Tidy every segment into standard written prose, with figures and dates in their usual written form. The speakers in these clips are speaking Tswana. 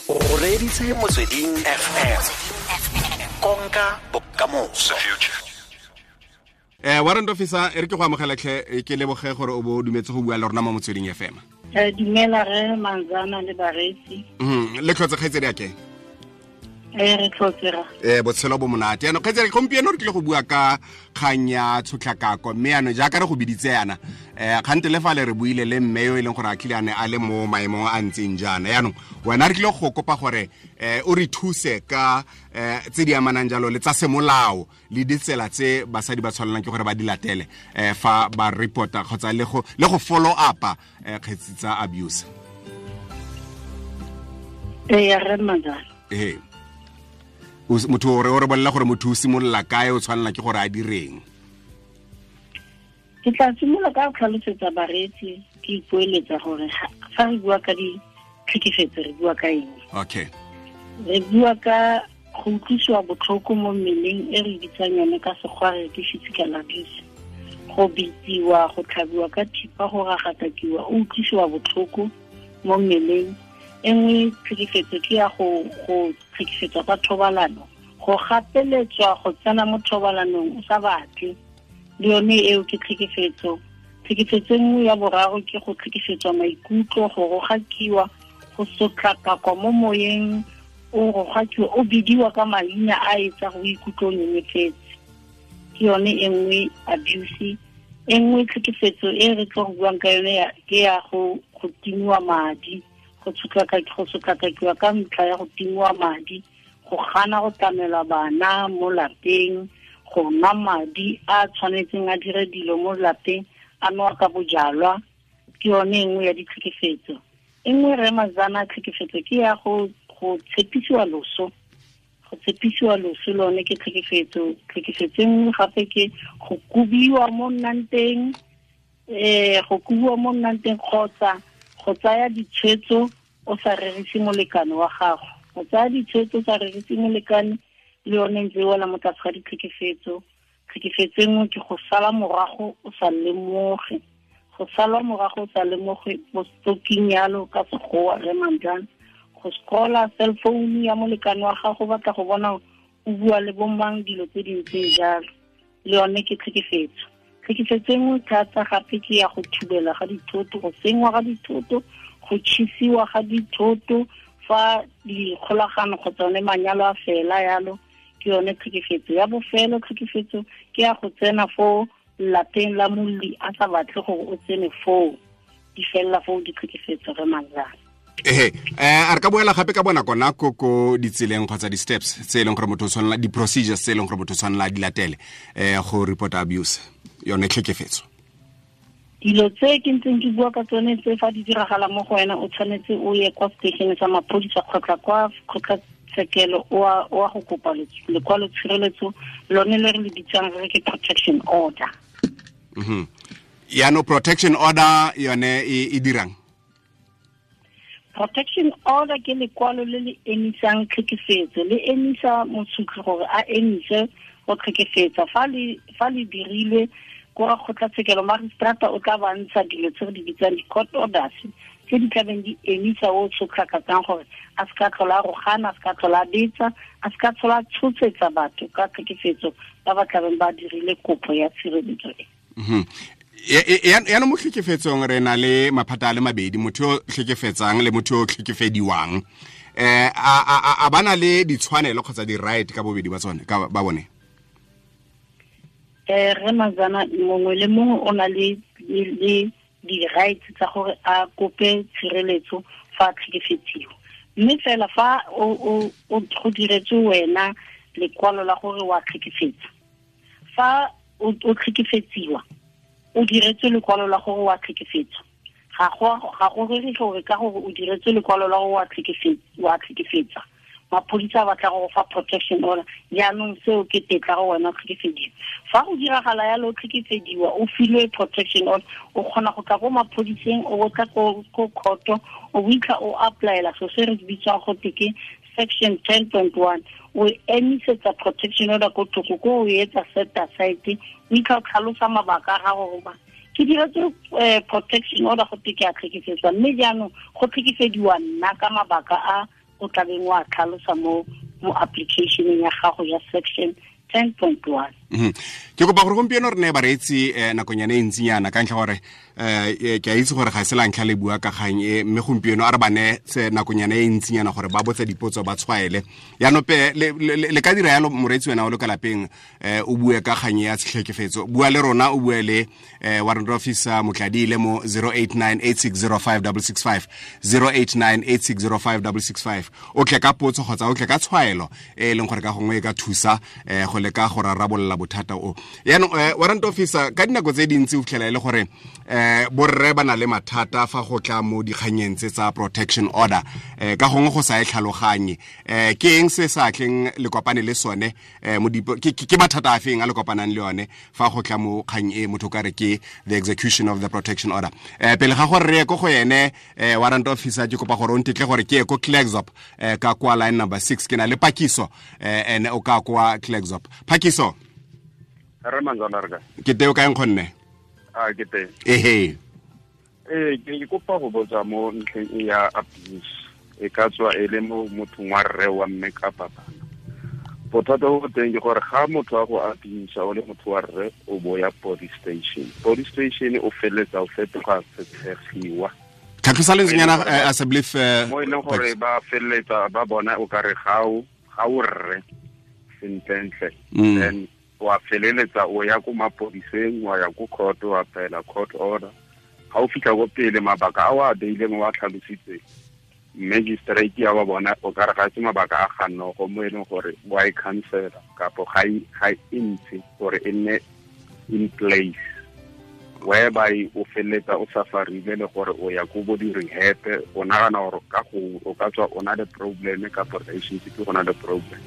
O reditse Motsweding FM, konka bokamoso. Warrant officer, e re ke go amogela tlhe, ke leboge gore o bo o dumetse go bua le rona mo Motsweding FM. Dumela re Manzana le bareetsi. Le tlhotse, kgaitsedi ake? Re tlhotse ra. Botshelo bo monate. Yaanong, kgaitsedi, gompieno re tlile go bua ka kgang ya tshotlakako, mme yaanong jaaka re go biditse yana, kgante le fa le re buile le mme yo e leng gore a tlile a ne a le mo maemong a ntseng jaana. Yaanong wena re tlile go kopa gore o re thuse ka tse di amanang jalo le tsa semolao le ditsela tse basadi ba tshwanelang ke gore ba di latele fa ba reporta kgotsa le go follow up-a kgetsi tsa abuse. Ee, re Manzana. Ee, motho o re bolela gore motho o simolola kae, o tshwanela ke gore a direng? Ke tla simolola ka go tlhalosetsa bareetsi, ke ipoeletsa gore fa re bua ka ditlhekefetso, re bua ka eng. Re bua ka go utlwisiwa botlhoko mo mmeleng, e re bitsang yone ka sekgwa re ke physical abuse, go bitsiwa, go tlhabiwa ka thipa, go ragatakiwa, o utlwisiwa botlhoko mo mmeleng. E nngwe tlhekefetso ke ya go tlhekefetswa ka thobalano, go gapeletswa go tsena mo thobalanong o sa batle, le yone eo ke tlhekefetso. Tlhekefetso e nngwe ya boraro ke go tlhekefetswa maikutlo, go rogakiwa, go sotlakakwa mo moyeng, o rogakiwa, o bidiwa ka maina a etsa go ikutlwa o nyenyefetse, ke yone e nngwe abuse. E nngwe tlhekefetso e re tlo go buang ka yone ke ya go timiwa madi, go sotlakakiwa ka ntlha ya go timiwa madi, go gana go tlamela bana mo lapeng, go nwa madi a tshwanetseng a dire dilo mo lapeng, a nwa ka bojalwa, ke yone e nngwe ya ditlhekefetso. E nngwe, re Mazana, tlhekefetso ke ya go tshepisiwa loso. Go tshepisiwa loso lone ke tlhekefetso. Tlhekefetso e nngwe gape ke go kobiwa mo nnang teng, go kobiwa mo nnang teng kgotsa go tsaya ditshwetso o sa rerise molekane wa gago. Go tsaya ditshwetso o sa rerise molekane le yone ntse e wela mo tlase ga ditlhekefetso. Tlhekefetso e nngwe ke go sala morago o sa lemoge, go salwa morago o sa lemoge, bo stalking yalo ka sekgowa, re Manjana, go scrolla cell phone ya molekane wa gago, batla go bona o bua le bomang, dilo tse di ntseng jalo, le yone ke tlhekefetso. Tlhekefetso e nngwe thata gape ke ya go thubela ga dithoto, go senngwa ga dithoto, go tšhisiwa ga dithoto fa dikgolagano kgotsa one manyalo a fela yalo, ke yone tlhekefetso. Ya bofelo tlhekefetso ke ya go tsena fo lapeng la molli a sa batle gore o tsene foo. Di felela foo ditlhekefetso, re Manzana. Ehe, a re ka boela gape ka bonako nako ko ditseleng kgotsa di-steps tse e leng gore motho o tshwanela, di-procedures tse e leng gore motho o tshwanela a di latele go report abuse, yone tlhekefetso? Dilo tse ke ntseng ke bua ka tsone tse, fa di diragala mo go wena, o tshwanetse o ye kwa station sa maphodisa kgotsa kwa kgotlatshekelo o a go kopa lekwalo tshireletso, lone le re le bitsang re ke protection order. Yaanong protection order yone e dirang? Protection order ke lekwalo le le emisang tlhekefetso, le emisa mosutli gore a emise go tlhekefetsa. Fa le dirilwe ko ga kgotlatshekelo, magistrata o tla ba ntsha dilo tse re di bitsang di-court orders, tse di tlabeng di emisa o tshotlhakatsang gore a se ka tlhola a rogana, a se ka tlhola a betsa, a se ka tlhola a tshosetsa batho ka tlhekefetso ba ba tlabeng ba dirile kopo ya tshireletso e. Yaanong mo tlhekefetsong re na le maphata a le mabedi, motho yo tlhekefetsang le motho yo tlhekefediwang. A ba na le ditshwanelo kgotsa di-right ka bobedi ba tsone, ka ba bone? Re Mazana, mongwe le mongwe o na le di-rights tsa gore a kope tshireletso fa a tlhekefetsiwa, mme fela fa o go diretswe wena lekwalo la gore wa tlhekefetsa, fa o tlhekefetsiwa, o diretswe lekwalo la gore wa tlhekefetsa, ga go rere gore ka gore o diretswe lekwalo la gore wa tlhekefetsa, maphodisa a batla go fa protection order, jaanong seo ke tetla go wena o tlhekefediwa. Fa go diragala yalo, o tlhekefediwa, o filwe protection order, o kgona go tla ko maphodiseng, o tla ko court, o itlha o applyela so se re bitswang go te ke section 10.1, o emisetsa protection order ko thoko, ko o etsa set aside, o itlha o tlhalosa mabaka a gago goba ke diretse protection order go te ke a tlhekefetswa, mme jaanong go tlhekefediwa nna ka mabaka a. o tlabeng wa tlhalosa mo application ya gago ya section 10.1. Ke kopa gore gompieno re ne bareetsi nakonyana e ntsinyana ka ntlha gore ke a itse gore ga se la ntlha le bua ka kgang e, mme gompieno a re ba ne se nakonyana e ntsinyana gore ba botse dipotso ba tshwaele. Yaanong pe le ka dira yalo moreetsi wena o le ka lapeng, o bue ka kgang ya tshitlhekefetso, bua le rona, o bue le warrant officer Motladiile mo 0898605665, 0898605665. O tle ka potso kgotsa o tle ka tshwaelo e leng gore ka gongwe e ka thusa go leka go rarabolola bothata o. Yaanong warrant officer, ka dinako tse dintsi o fitlhela e le gore borre ba na le mathata fa go tla mo dikganyeng tse tsa protection order, ka gongwe go sa e tlhaloganye. Ke eng se sa tleng le kopane le sone, ke mathata a feng a le kopanang le yone fa go tla mo kgang e motho ka re ke the execution of the protection order? Pele ga gore re ye ko go ene warrant officer, ke kopa gore o ntetle gore ke ye ko Klerksdorp, ka kwa line number 6, ke na le Pakiso, ene o ka kwa Klerksdorp. Pakiso. Re manzana re ka. Ke teo kae nkgonne? A ke teng. Ehe. Ke kopa go botsa mo ntlheng e ya abuse. E ka tswa e le mo mothong wa rre wa mme kapa bana. Bothata bo teng ke gore ga motho a go abuse o le motho wa rre, o bo ya police station. Police station o feletsa o fetoga setshegiwa. Tlhatlhosa lentswenyana, as I believe, mo e leng gore ba feletsa ba bona o kare ga o rre sentlentle. Then wa feleletsa o ya ko mapodiseng, wa ya ko court, wa apply-ela court order. Ga o fitlha ko pele, mabaka a o a beileng wa tlhalositse magistrate ya ba bona o ka re ga se mabaka a gannogo mo e leng gore wa e cancela kapo ga e ntshe gore e nne in place, whereby o feleletsa o safarile le gore o ya ko bo di-rehab, o nagana gore ka go o ka tswa o na le problem kapo relationship go na le problem.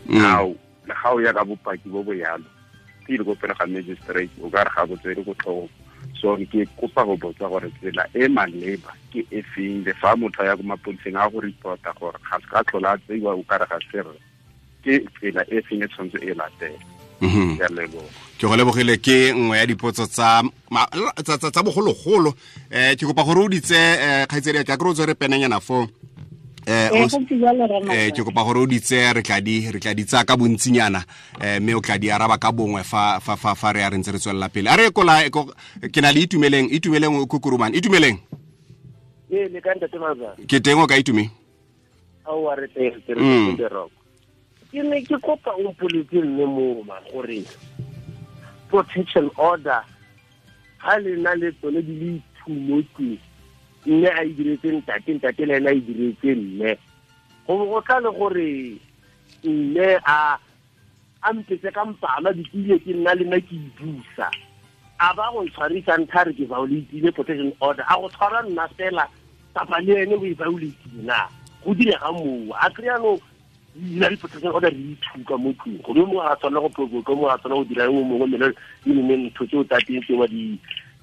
Now le ga o ya ka bopaki bo bo yalo pele ko pele ga magistrate, o ka re ga bo tswele ko tlhogong. So ke kopa go botsa gore tsela e maleba ke e feng, le fa motho a ya ko mapodiseng a go reporta gore ga se ka tlhola a tseiwa o ka re ga se rre, ke tsela e feng e tshwanetse e latela? Ke a leboga. Ke go lebogile, ke nngwe ya dipotso tsa bogologolo. Ke kopa gore o ditse, kgaitsedi ya ka, ke re o tswere penenyana foo. Ke kopa gore o ditse, re tla di tsaya ka bontsinyana, mme o tla di araba ka bongwe fa re ya re ntse re tswelela pele. A re kola ke na le Itumeleng o Kukurumane. Itumeleng. Le ka ntate Manzana. Ke teng o ka Itume? Aowa, re teng, re teng rock. Ke ne ke kopa o mpoletse mme moma gore protection order ga le na le tsone di le two mo tlung, mme a e diretse ntate le ena a e diretse mme, go tla le gore mme a mpetse ka mpama dikile ke nna le nna ke ibusa, a ba go ntshwarisa ntha re ke violate protection order, a go tshwara nna fela kapa le ene o e violate na go direga moo? A kry-a no dira di-protection order re ithuka mo tlung, gore yo mongwe ga tshwanela go provoke, yo mongwe ga tshwanela go dira yo mongwe, mme e nne ntho tseo tsa teng tseo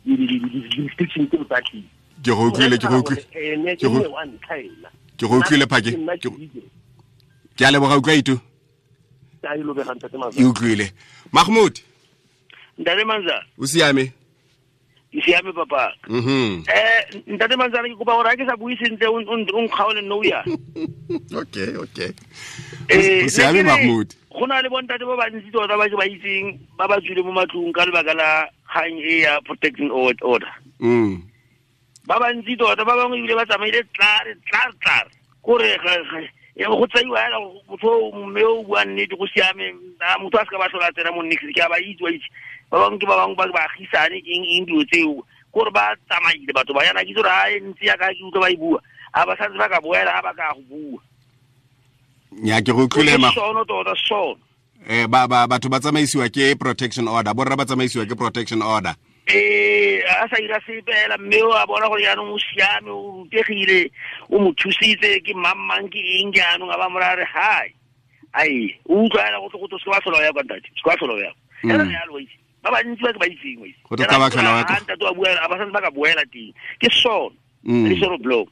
di-restriction tseo tsa teng. Ke go utlwile, ke go utlwile. Ke go utlwile, Phake. Ke a leboga, utlwa Itu. E utlwile. Mahmoud. Ntate Manzana. O siame? Ke siame papa. Ntate Manzana, ke kopa gore ha ke sa bue sentle o nkgaole nno ya. Okay. O siame Mahmoud. Go na le bontate ba bantsi tota ba ke ba itseng ba ba tswile mo matlong ka lebaka la kgang e ya protection order. Ba bantsi tota ba bangwe ebile ba tsamaile tlare kore go tsaiwa hela motho mme o bua nnete go siame, motho a se ka ba tlhola tsena mo nix, ke a ba itse wa itse. Ba bangwe ke ba bangwe ba baagisane eng dilo tseo, kore ba tsamaile batho ba yana ke itse gore ha e ntse yaka ke utlwa ba e bua, a ba santse ba ka boela ha ba ka go bua. Nya ke go utlwile ma. Sono tota sono. Batho ba tsamaisiwa ke protection order, borra ba tsamaisiwa ke protection order. A sa ira sepe hela, mme o a bona gore jaanong o siame, o rutegile, o mo thusitse ke mang ke eng jaanong, a ba mo raya re hai. Ai, o utlwa hela go tle go se ka ba tlhola o ya kwa ntate, se ka ba tlhola o ya. Hela yalo wa itse. Ba bantsi ba ke ba itseng wa itse. Go tle ka ba tlhola o ya kwa. Ntate wa bua, a ba santse ba ka boela teng. Ke sono. Le sono blow.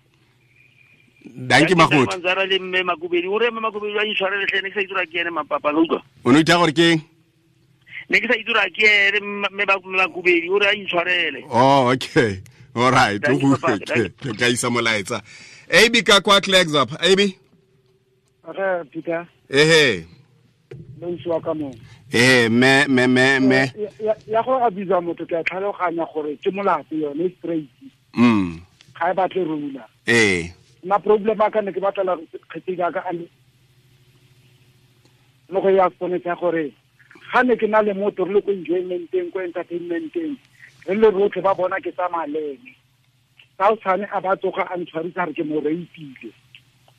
Danke Mahmoud. Manzana le mme Makubedi, o re mme Makubedi a intshwarele tlhe, ne ke sa itse gore ke ene mapapa, la utlwa. O ne o itha gore ke eng? Ne ke sa itse gore ke ene mme Makubedi, o re a intshwarele. Oh, okay. All right. Ke tla isa molaetsa. AB ka kwa Klerksdorp. AB? Re Peter. Ehe. Le usiwa ka mo. Eh me me me me. Ya go abuse motho ke a tlhaloganya gore ke molato yone straight. Ga e batle rula. Eh. Na problem a ka ne ke batla kgetse ka ka mo go ya tsone tsa gore ga ne ke na le motho re le ko enjoymenteng ko entertainmenteng re le rotlhe ba bona ke tsamaya le ene. Ga o tshwane a ba tsoga a ntshwarisa re ke mo rapeile.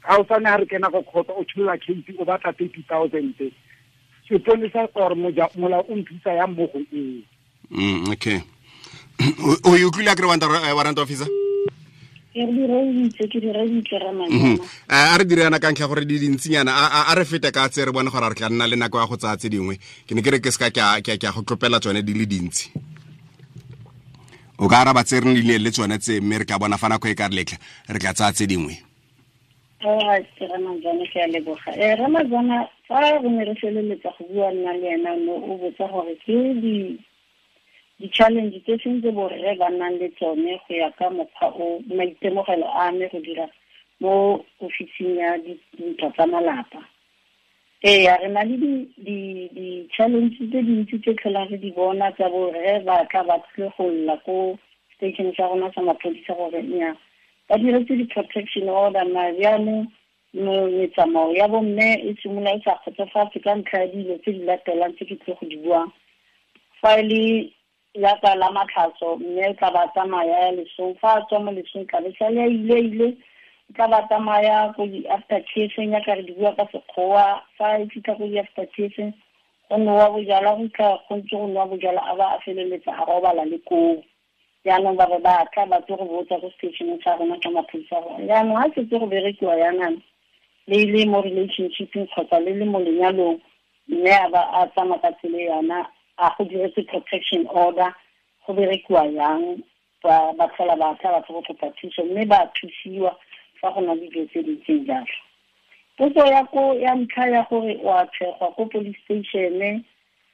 Ga o tshwane ha re kena go court o tshola case o batla 30,000. Sepolesa or molao o nthusa yang mo go eo. Okay. O e utlwile akere warrant officer? Ke di reeditse Ramazana. A re dire yana ka ntlha gore di dintsinyana a re fete ka tse re bone gore re tla nna le nako ya go tsaya tse dingwe. Ke ne ke re ke seka ke a go tlopela tsone di le dintsi. O ka araba tse re nnileng le tsone tse mme re tla bona fa nako e ka re letla re tla tsaya tse dingwe. Alright, Ramazana ke a leboga. Ramazana fa re ne re feleletsa go bua nna le ena no o botsa gore ke di-challenge tse seng tse borre ba nnang le tsone go ya ka mokgwa o maitemogelo a me go dira mo ofising ya dintwa tsa malapa. Ee, re na le di-challenge tse dintsi tse tlholang re di bona tsa borre ba tla ba tlile go lla ko station sa rona sa maphodisa gore nnyaa ba diretse di-protection order mare jaanong metsamao ya bomme e simolola e sa kgotsofatse ka ntlha ya dilo tse di latelang tse ke tlile go di buang. Fa e le yaka la matlhatso mme o tla ba tsamaya ya lesong, fa a tswa mo lesong tla be sale a ile o tla ba tsamaya ko di-after tears-eng yaka re di bua ka Sekgowa. Fa e fitlha ko di-after tears-eng go nowa bojalwa, go fitlha go ntse go nowa bojalwa a ba a feleletsa a robala le koo. Jaanong ba be ba tla ba tlo go botsa ko stationeng sa rona ka maphodisa gore jaanong ga setse go berekiwa yanana le le mo relationshipeng kgotsa le le mo lenyalong mme a ba a tsamaya ka tsela yana a go diretse protection order go berekiwa yang ba tlhola ba tla ba tlo go kopa thuso mme ba thusiwa fa go na le dilo tse di ntseng jalo. Potso ya ko ya ntlha ya gore o a tshegwa ko police station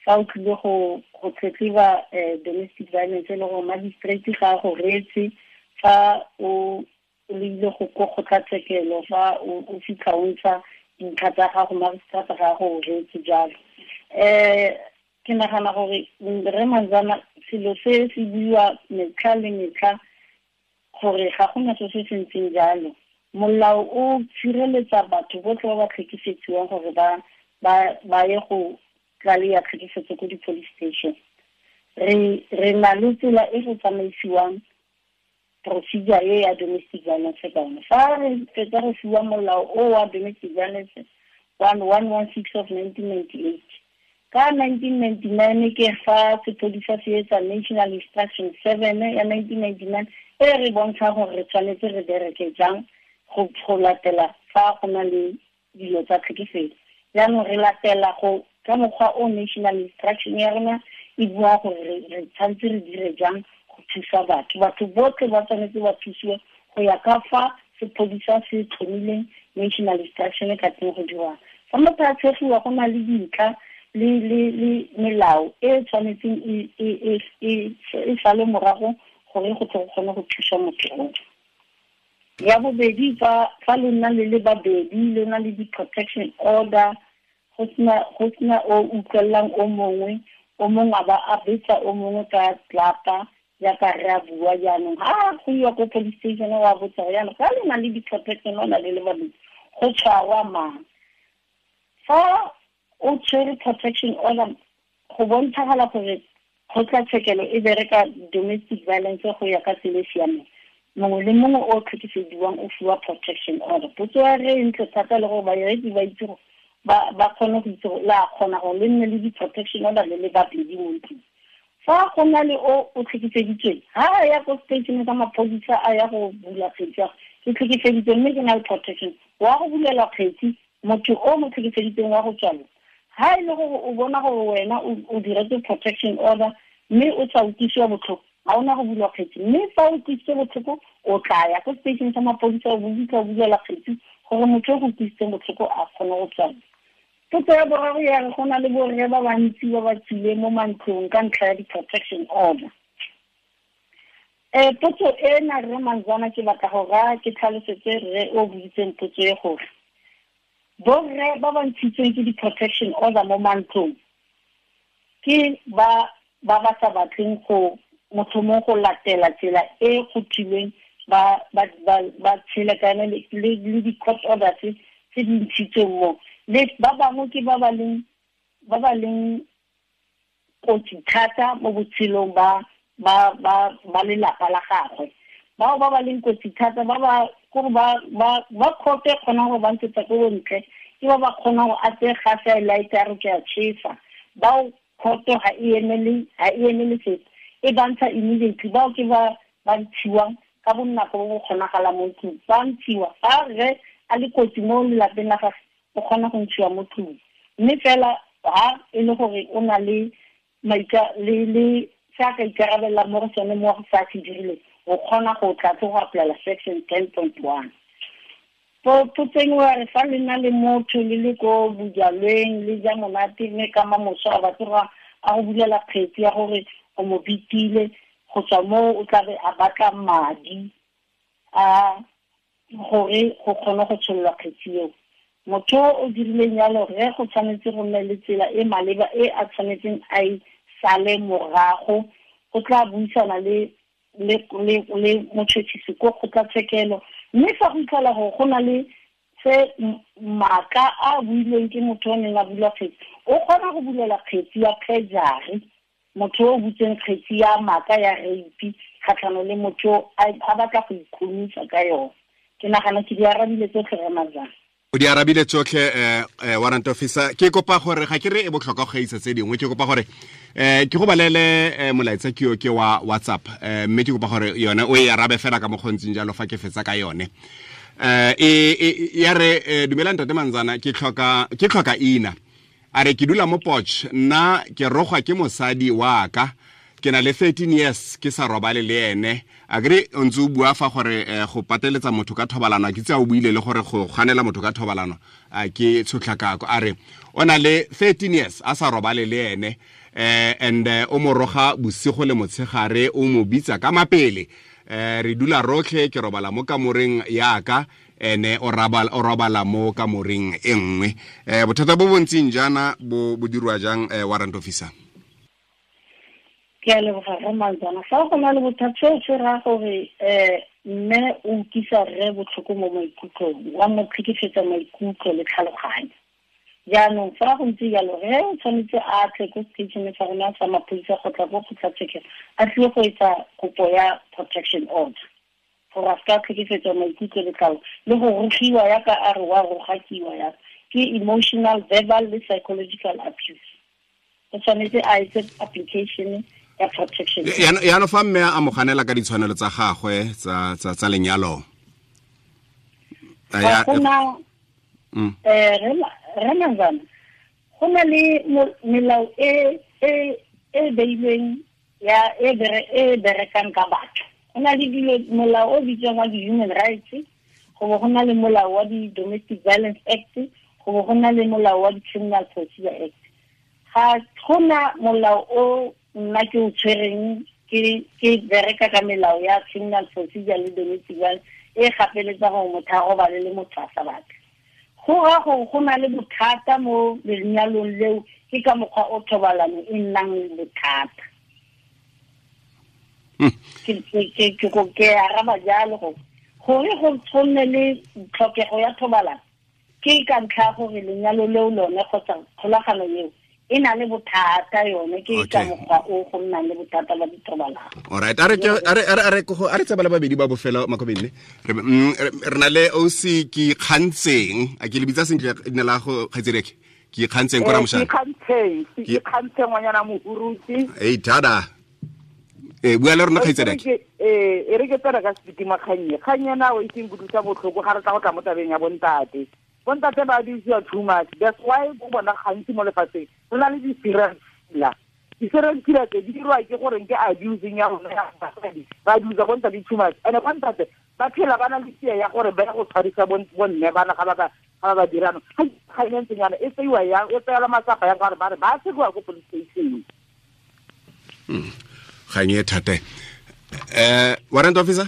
fa o tlile go tletleba domestic violence le gore magistrate ga a go reetse fa o ile go ko kgotlatshekelo fa o fitlha o ntsha dintlha tsa gago magistrate ga a go reetse jalo. Ke nagana gore re Manzana selo se se buiwa metlha le metlha gore ga gona se se ntseng jalo. Molao o tshireletsa batho botlhe ba ba tlhekefetsiwang gore ba ye go tlaleya tlhekefetso ko di-police station. Re na le tsela e go tsamaisiwang procedure e ya domestic violence ka yone. Fa re fetsa go fiwa molao o wa domestic violence 1116 of 1998 ka 1999 ke fa sepodisa se etsa National Instruction 7 ya 1999 e re bontsha gore re tshwanetse re bereke jang go latela fa go na le dilo tsa tlhekefetso. Jaanong re latela go ka mokgwa o National Instruction ya rona e bua gore re tshwanetse re dire jang go thusa batho. Batho botlhe ba tshwanetse ba thusiwe go ya ka fa sepodisa se tlhomileng National Instruction ka teng go dirwang. Fa motho a tshegiwa go na le dintlha le melao e tshwanetseng e sale morago gore go tle go kgone go thusa motho o. Ya bobedi fa le nna le le babedi le na le di-protection order go sena o utlwelelang o mongwe a ba a betsa o mongwe ka tlapa jaaka re a bua jaanong ga go iwa ko police station wa botsa gore jaanong fa le na le di-protection order le le babedi go tshwarwa mang. Fa o tshwere protection order go bontshagala gore kgotlatshekelo e bereka domestic violence go ya ka tsela e siameng. Mongwe le mongwe o tlhekefediwang o fiwa protection order. Potso ya re ntle thata le gore bareetsi ba itse gore ba kgone go itse gore la kgona gore le nne le di-protection order le le babedi mo ntlong. Fa go na le o tlhekefeditsweng ha a ya ko station sa maphodisa a ya go bula kgetsi ya ke tlhekefeditswe mme ke na le protection wa go bulela kgetsi motho o mo tlhekefeditsweng wa go tswalwa. Ha e le gore o bona gore wena o diretse protection order mme o sa utlwisiwa botlhoko ga ona go bulwa kgetsi, mme fa o utlwisitse botlhoko o tla ya ko station sa maphodisa o fitlha o bulela kgetsi gore motho o go utlwisitseng botlhoko a kgone go tswalwa. Potso ya boraro ya re go na le borre ba bantsi ba ba tswileng mo mantlong ka ntlha ya di-protection order. Potso ena rre Manzana ke batla go raya ke tlhalosetse rre o boditseng potso e gore Borre ba ba ntshitsweng ke di-protection order mo mantlong ke ba ba sa batleng go motho mongwe go latela tsela e go thilweng ba tshele ka yone le di-court orders tse di ntshitsweng mo. Le ba bangwe ke ba ba leng kotsi thata mo botshelong ba lelapa la gagwe. Bao ba ba leng kotsi thata ba ba gore ba khope kgonang go ba ntshetsa ko bontle, ke ba ba kgonang go a tseye gase a e light a re ke a chesa. Bao khoto ga e emele sepe, e ba ntsha immediately. Bao ke ba ntshiwang ka bonako bo bo kgonagalang mo ntlong. Ba ntshiwa fa rre a le kotsi mo lelapeng la gagwe, o kgona go ntshiwa mo tlong. Mme fela ha e le gore o na le le se a ka ikarabela mo go sone mo go sa se dirileng, o kgona go tla go apply section 10.1. Potseng wa re fa le na le motho le le ko bojalweng le ja monate, mme ka mamoso a batla go a go bulela kgetsi ya gore o mo bitile, go tswa moo o tla be a batla madi a gore go kgone go tshololwa kgetsi eo. Motho o dirileng yalo, re go tshwanetse go nne le tsela e maleba e a tshwanetseng a e sale morago. O tla buisana le motšhotšhisi ko kgotlatshekelo, mme fa go itlhela gore go na le se maaka a builweng ke motho o neng a bula kgetsi, o kgona go bulela kgetsi ya perjury, motho o butseng kgetsi ya maaka ya rape kgatlhanong le motho a batla go ikhumisa ka yone. Ke nagana ke di arabile tsotlhe re Manzana. O di arabile tsotlhe, warrant officer. Ke kopa gore ga ke re e botlhokwa go gaisa tse dingwe, ke kopa gore ke go balele molaetsa ke yo ke wa WhatsApp, mme ke kopa gore yone o e arabe fela ka mokgontsing jalo fa ke fetsa ka yone. Ya re, dumela ntate Manzana, ke tlhoka ina. A re ke dula mo Potch, nna ke rogwa ke mosadi wa ka, ke na le 13 years ke sa robale le ene. A kere o ntse o bua fa gore go pateletsa motho ka thobalano, ke tse a o buile le gore go ganela motho ka thobalano a ke tshotlakako. A re o na le 13 years a sa robale le ene, and o mo roga bosigo le motshegare, o mo bitsa ka mapele. Re dula rotlhe, ke robala mo kamoreng yaka, ene o robala mo kamoreng e nngwe. Bothata bo bontseng jaana bo dirwa jang, warrant officer? Ke a leboga re Manzana. Fa go na le bothata, seo se raya gore mme o utlwisa rre botlhoko mo maikutlong, wa mo tlhekefetsa maikutlo le tlhaloganyo. Jaanong fa go ntse jalo, rre o tshwanetse a tle ko station sa rona sa maphodisa go tla ko kgotlatshekelo, a tlile go etsa kopo ya protection order gore a seka tlhekefetsa maikutlo le tlhaloganyo le go rogiwa yaka a re wa rogakiwa yaka, ke emotional, verbal le psychological abuse. O tshwanetse a etse application ya protection. Yaanong fa mme a mo ganela ka ditshwanelo tsa gagwe tsa lenyalo, ga gona re Manzana, go na le melao e beilweng ya e berekang ka batho. Go na le dilo, molao o bitswang wa di-human rights, go bo go na le molao wa di-Domestic Violence Act, go bo go na le molao wa di-Criminal Procedure Act. Ga gona molao o nna ke o tshwereng ke bereka ka melao ya criminal procedure le domestic violence e gapeletsa gore motho a robale le motho a sa batle. Go raya gore go na le bothata mo lenyalong leo, ke ka mokgwa o thobalano e nnang bothata. Ke araba jalo gore go tshwanne le tlhokego ya thobalano ke ka ntlha gore lenyalo leo lone kgotsa kgolagano eo e na le bothata yone, ke ka mokgwa o go nnang le bothata ba dithobalano. Alright, a re tsebala babedi ba bofelo Makobene. Re na le OC ke Kgantseng, a ke le bitsa sentle leina la go kgaitsedeke? Ke Kgantseng ko Ramoshane. Ke Kgantseng ngwanyana Mohurutse. Ei tada. Bua le rona kgaitsedeke. E re ke tsena ka setima kgannye. Kgannye na o itseng kutlwisa botlhoko ga re tla go tla mo tabeng ya bontate. Bontate ba abuse too much. That's why go bona gantsi mo lefatsheng re na le di-serial killer. Di-serial killer tse di dirwa ke gore ke abusing ya rona ya basadi. Ba abuse bontate too much. And bontate ba phela ba na le fear ya gore ba ya go tshwarisa bonne bana ga ba dirano. Ga e ntseng yana e tseiwa yang, e tseelwa matsapa yang ka gore ba re ba tseiwa ko police station. Kgang e thata. Warrant officer?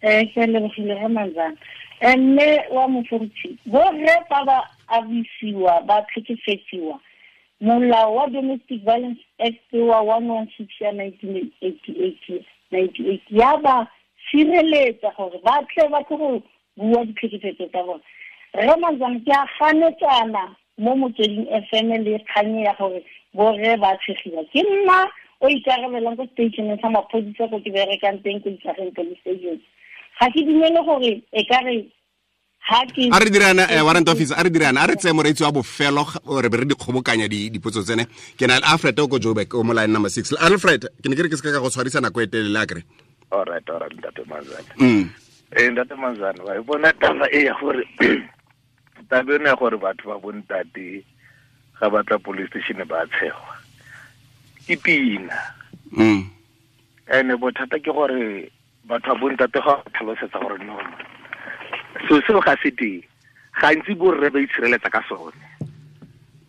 Ke lebogile re Manzana. Mme wa moforutshi, borre fa ba abisiwa ba tlhekefetsiwa, molao wa Domestic Violence Act wa 116 ya 1988 ya ba sireletsa gore ba tle ba tle go bua ditlhekefetso tsa bone. Rre Manzana, ke a ganetsana mo Motsweding FM le kganye ya gore borre ba tshegiwa. Ke nna o ikarabelang ko stationeng sa maphodisa ko ke berekang teng ko Ikageng police station. Ga ke dumele gore e ka re a re dirana warrant officer, a re dirana, a re tseye moreetsi wa bofelo re be re dikgobokanya dipotso tsene. Ke na le Alfred o ko Joburg, o mo line number 6. Alfred, ke ne ke re ke se ka go tshwarisa nako e telele a kere. All right, Ntate Manzana. Ntate Manzana, wa e bona taba e ya gore taba eno ya gore batho ba bontate ga ba tla police station ba tshegwa ke pina. Ene bothata ke gore batho ba bontate ga ba tlhalosetsa gore no so seo ga se teng, gantsi borre ba itshireletsa ka sone.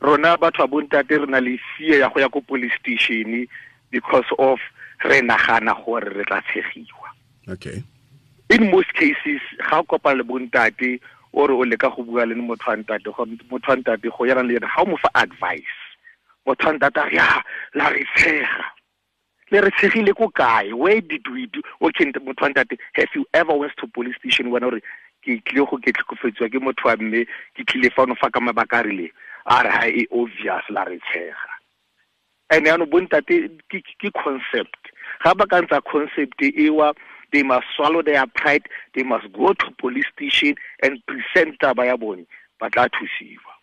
Rona batho ba bontate re na le fear ya go ya ko police station because of re nagana gore re tla tshegiwa. Okay. In most cases ga o kopana le bontate o re o leka go bua le motho wa ntate, motho wa ntate go yana le yena ga o mo fa advice, motho wa ntate a re ya la re tshega, le re tshegile ko kae, where did we do? Okay, motho wa ntate, have you ever went to police station wena ore ke tlile go ke tlhokofetsiwa ke motho wa mme, ke tlile fano fa ka mabaka a rileng? A re ha e obvious la re tshega. And yaanong bontate ke concept, ga ba ka ntsa concept ewa, they must swallow their pride, they must go to police station and present taba ya bone, ba tla thusiwa.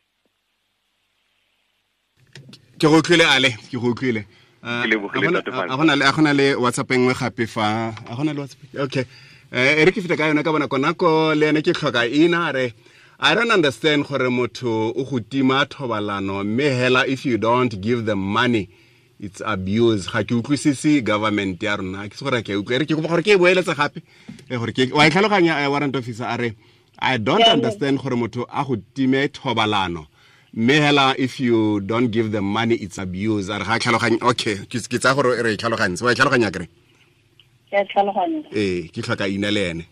Ke go utlwile Ale, ke go utlwile. A gona le WhatsApp e nngwe gape fa, a gona le WhatsApp. Okay. E re ke feta ka yone ka bona konako le ene ke tlhoka ina re I don't understand gore motho o go tima thobalano mme hela if you don't give them money it's abuse. Ga ke utlwisise government ya rona, ke se gore ke utlwe, re ke kopa gore ke e boeletse gape gore ke wa e tlhaloganya. Warrant officer a re I don't understand gore motho a go time thobalano mme hela if you don't give them money it's abuse. A re ga tlhaloganya. Okay, ke tsaya gore re e tlhalogantse. Wa e tlhaloganya kere? Ke tlhaloganya. Ee, ke tlhoka ina le ene.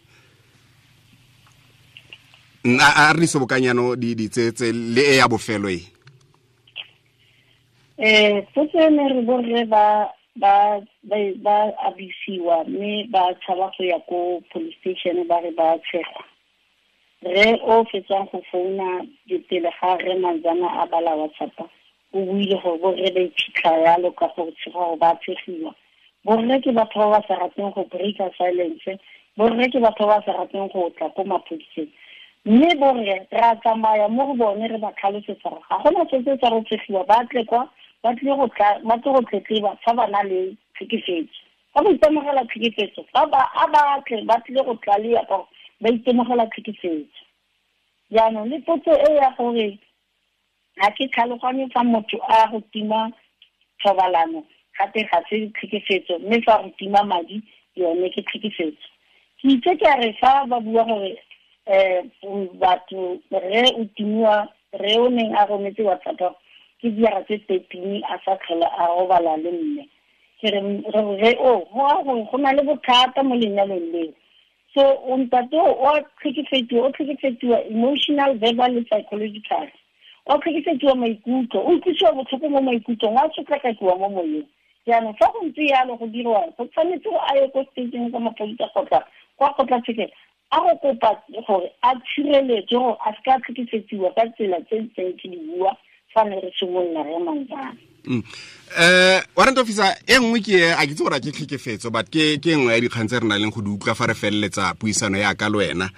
A re sobokanyano di tse le e ya bofelo e. Potso ene re borre ba abisiwa mme ba tshaba go ya ko police station ba re ba tshegwa. Re o fetsang go founa pele ga re Manzana a bala WhatsApp, o buile gore borre ba iphitlha yalo ka go tshega gore ba tshegiwa. Borre ke batho ba ba sa rateng go breaka silence, borre ke batho ba ba sa rateng go tla ko maphodiseng. Mme borre re a tsamaya mo go bone re ba tlhalosetsa gore ga gona se se tsa go tshegiwa, ba tle kwa ba tle go tletleba fa ba na le tlhekefetso. Fa ba itemogela tlhekefetso, fa ba a ba tle ba tlile go tlalea ka gore ba itemogela tlhekefetso. Jaanong le potso e ya gore ga ke tlhaloganye fa motho a go tima thobalano gape ga se tlhekefetso, mme fa go tima madi yone ke tlhekefetso. Ke itse ke a re fa ba bua gore batho re o timiwa, re o neng a rometse WhatsApp ke diara tse 13 a sa tlhola a robala le mme, ke re re o go go na le bothata mo lenyalong leo. So o ntate o tlhekefetsiwa emotional, verbal le psychological. O tlhekefetsiwa maikutlo, o utlwisiwa botlhoko mo maikutlong, a sotlakakiwa mo moyeng. Jaanong fa go ntse yalo go dirwa, go tshwanetse go a ye ko stationeng sa maphodisa kgotsa kwa kgotlatshekelo a go kopa gore a tshireletswe gore a se ka tlhekefetsiwa ka tsela tse ntseng ke di bua fa ne re simolola re Manzana. Warrant officer, e nngwe ke a ke itse gore a ke tlhekefetso, but ke nngwe ya dikgang tse re nang leng go di utlwa fa re feleletsa puisano ya ka le wena.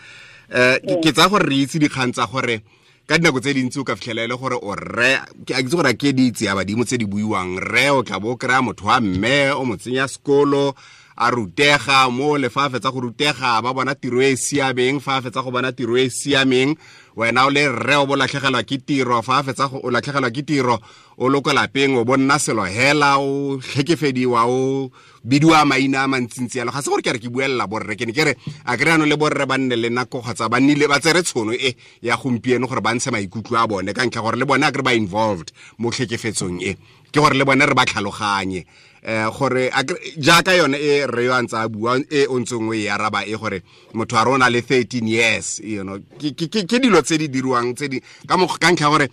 Ke tsaya gore re itse dikgang tsa gore ka dinako tse dintsi o ka fitlhela e le gore o rre, a ke itse gore a ke di itse ya badimo tse di buiwang, rre o tla bo o kry-a motho wa mme o mo tsenya sekolo a rutega mo le fa a fetsa go rutega ba bona tiro e siameng, fa a fetsa go bona tiro e siameng Wena o le rre o bo latlhegelwa ke tiro, fa a fetsa go o latlhegelwa ke tiro, o lo ko lapeng o bonna selo hela, o tlhekefediwa, o bidiwa maina a mantsintsi yalo. Ga se gore ke re ke buelela borre, ke ne ke re a kry ano le borre ba nne le nako kgotsa ba nnile ba tsere tshono e ya gompieno gore ba ntshe maikutlo a bone, ka ntlha gore le bone a kry ba involved mo tlhekefetsong e, ke gore le bone re ba tlhaloganye. Gore jaaka yone e re yo a ntse a bua e o ntseng o e araba e gore motho a rona le 13 years, you know, ke dilo tse di dirwang tse di ka ka ntlha gore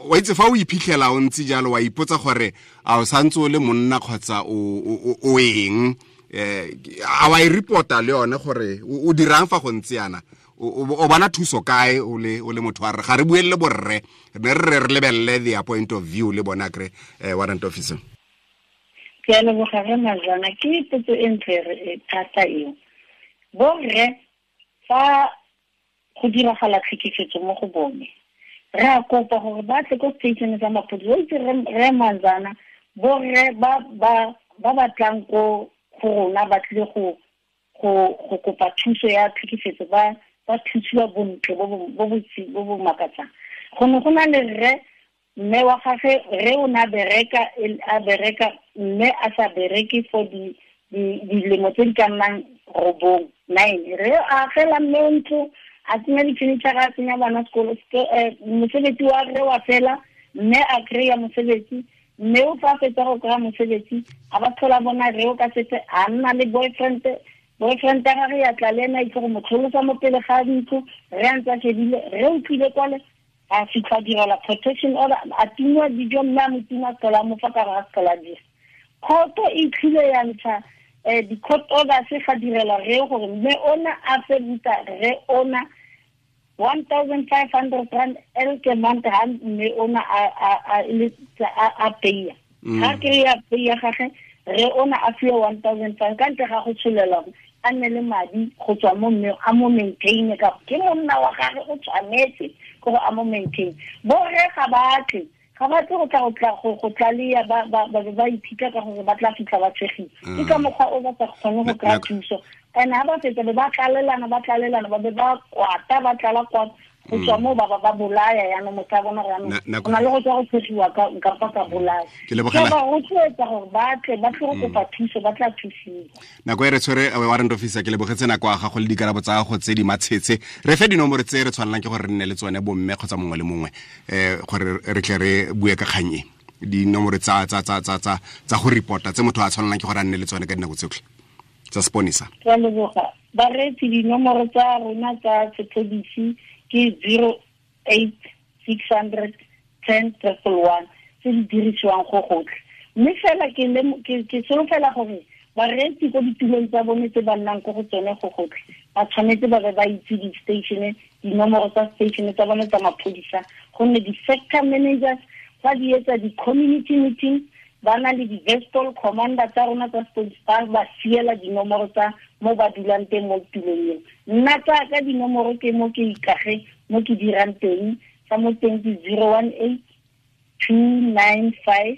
wa itse fa o iphitlhela o ntse jalo wa ipotsa gore a o santse o le monna kgotsa o eng, a wa e reporta le yone gore o dirang fa go ntse yana, o bona thuso kae o le motho wa re ga re buelele borre, re re lebelele their point of view le bona kre warrant officer. Ke a leboga re Mazana, ke potso e ntle thata eo. Borre fa go diragala tlhekefetso mo go bone, re a kopa gore ba tle ko station sa maphodisa. O itse re Mazana, borre ba ba tlang ko go rona ba tlile go kopa thuso ya tlhekefetso, ba thusiwa bontle bo bo makatsang. Go ne go na le rre, mme wa gagwe re o na bereka, a bereka mme a sa bereke for dilemo tse di ka nnang 9, 9. Re a agela mme ntlo, a tsenya di-furniture, a tsenya bana sekolo, mosebetsi wa re wa fela, mme a kry-a mosebetsi, mme o fa fetsa go kry-a mosebetsi, a ba tlhola bona re o ka setse a nna le boyfriend ya gagwe ya tla le ena itse go mo tlholosa mo pele ga ntlo, re a ntse a shebile, re o tlile kwale a fitlha direla protection order, a tingwa dijo mme a mo tima tlhola mo fa ka ga tlhola dira. Kgoto e tlile ya ntsha di-court orders ga direla re gore mme ona a fe buta re ona 1,500 rand elke month ha mme ona a peya. Ha kry-a peya gage, re ona a fiwe 1,500 ka ntle ga go tsholela a nne le madi go tswa mo mme a mo maintain, ka ke monna wa gagwe o tshwanetse gore a mo maintain. Borre ga ba tle go tla go tlalea ba iphitlha ka gore ba tla fitlha ba tshegile, ke ka mokgwa o ba sa kgone go kry-a thuso. And ha ba fetsa be ba tlalelana, ba be ba kwata, ba tlala kwata, go tswa mo ba ba bolaya. Yaanong motho a bona gore yaanong go na le go tswa go tshegiwa nka ka bolaya. Ke ba rotloetsa gore ba tle ba tle go kopa thuso, ba tla thusiwa. Nako e re tshwere warrant officer, ke lebogetse nako ya gago le dikarabo tsa gago tse di matshetse. Re fe dinomoro tse re tshwanelang ke gore re nne le tsone bomme kgotsa mongwe le mongwe, gore re tle re bue ka kgang e, dinomoro tsa go reporta tse motho a tshwanelang ke gore a nne le tsone ka dinako tsotlhe tsa seponisa. Ke a leboga bareetsi, dinomoro tsa rona tsa sepodisi ke 08 600 10 111 tse di dirisiwang go gotlhe. Mme fela ke solofela gore bareetsi ko ditulong tsa bone tse ba nnang ko go tsone go gotlhe, ba tshwanetse ba be ba itse di-station, dinomoro tsa station tsa bone tsa maphodisa, gonne di-sector managers ba di etsa di-community meeting, ba na le di-vestol commander tsa rona tsa sepodisi, ba siela dinomoro tsa mo ba dulang teng mo tulong eo. Nna tsa ka dinomoro ke mo ke ikage mo ke dirang teng, sa mo teng ke 018 295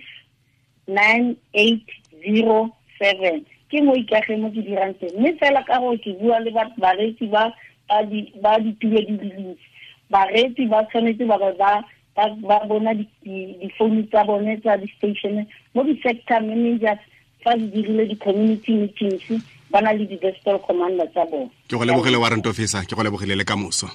9807, ke mo ikage mo ke dirang teng. Mme fela ka gore ke bua le bareetsi ba ditulo di le dintsi, bareetsi ba tshwanetse ba ba bona difounu tsa bone tsa di-station mo di-sector managers fa di dirile di-community meetings, ba na le di-vestol commander tsa bone. Ke go lebogile warrant officer, ke go lebogile le kamoso.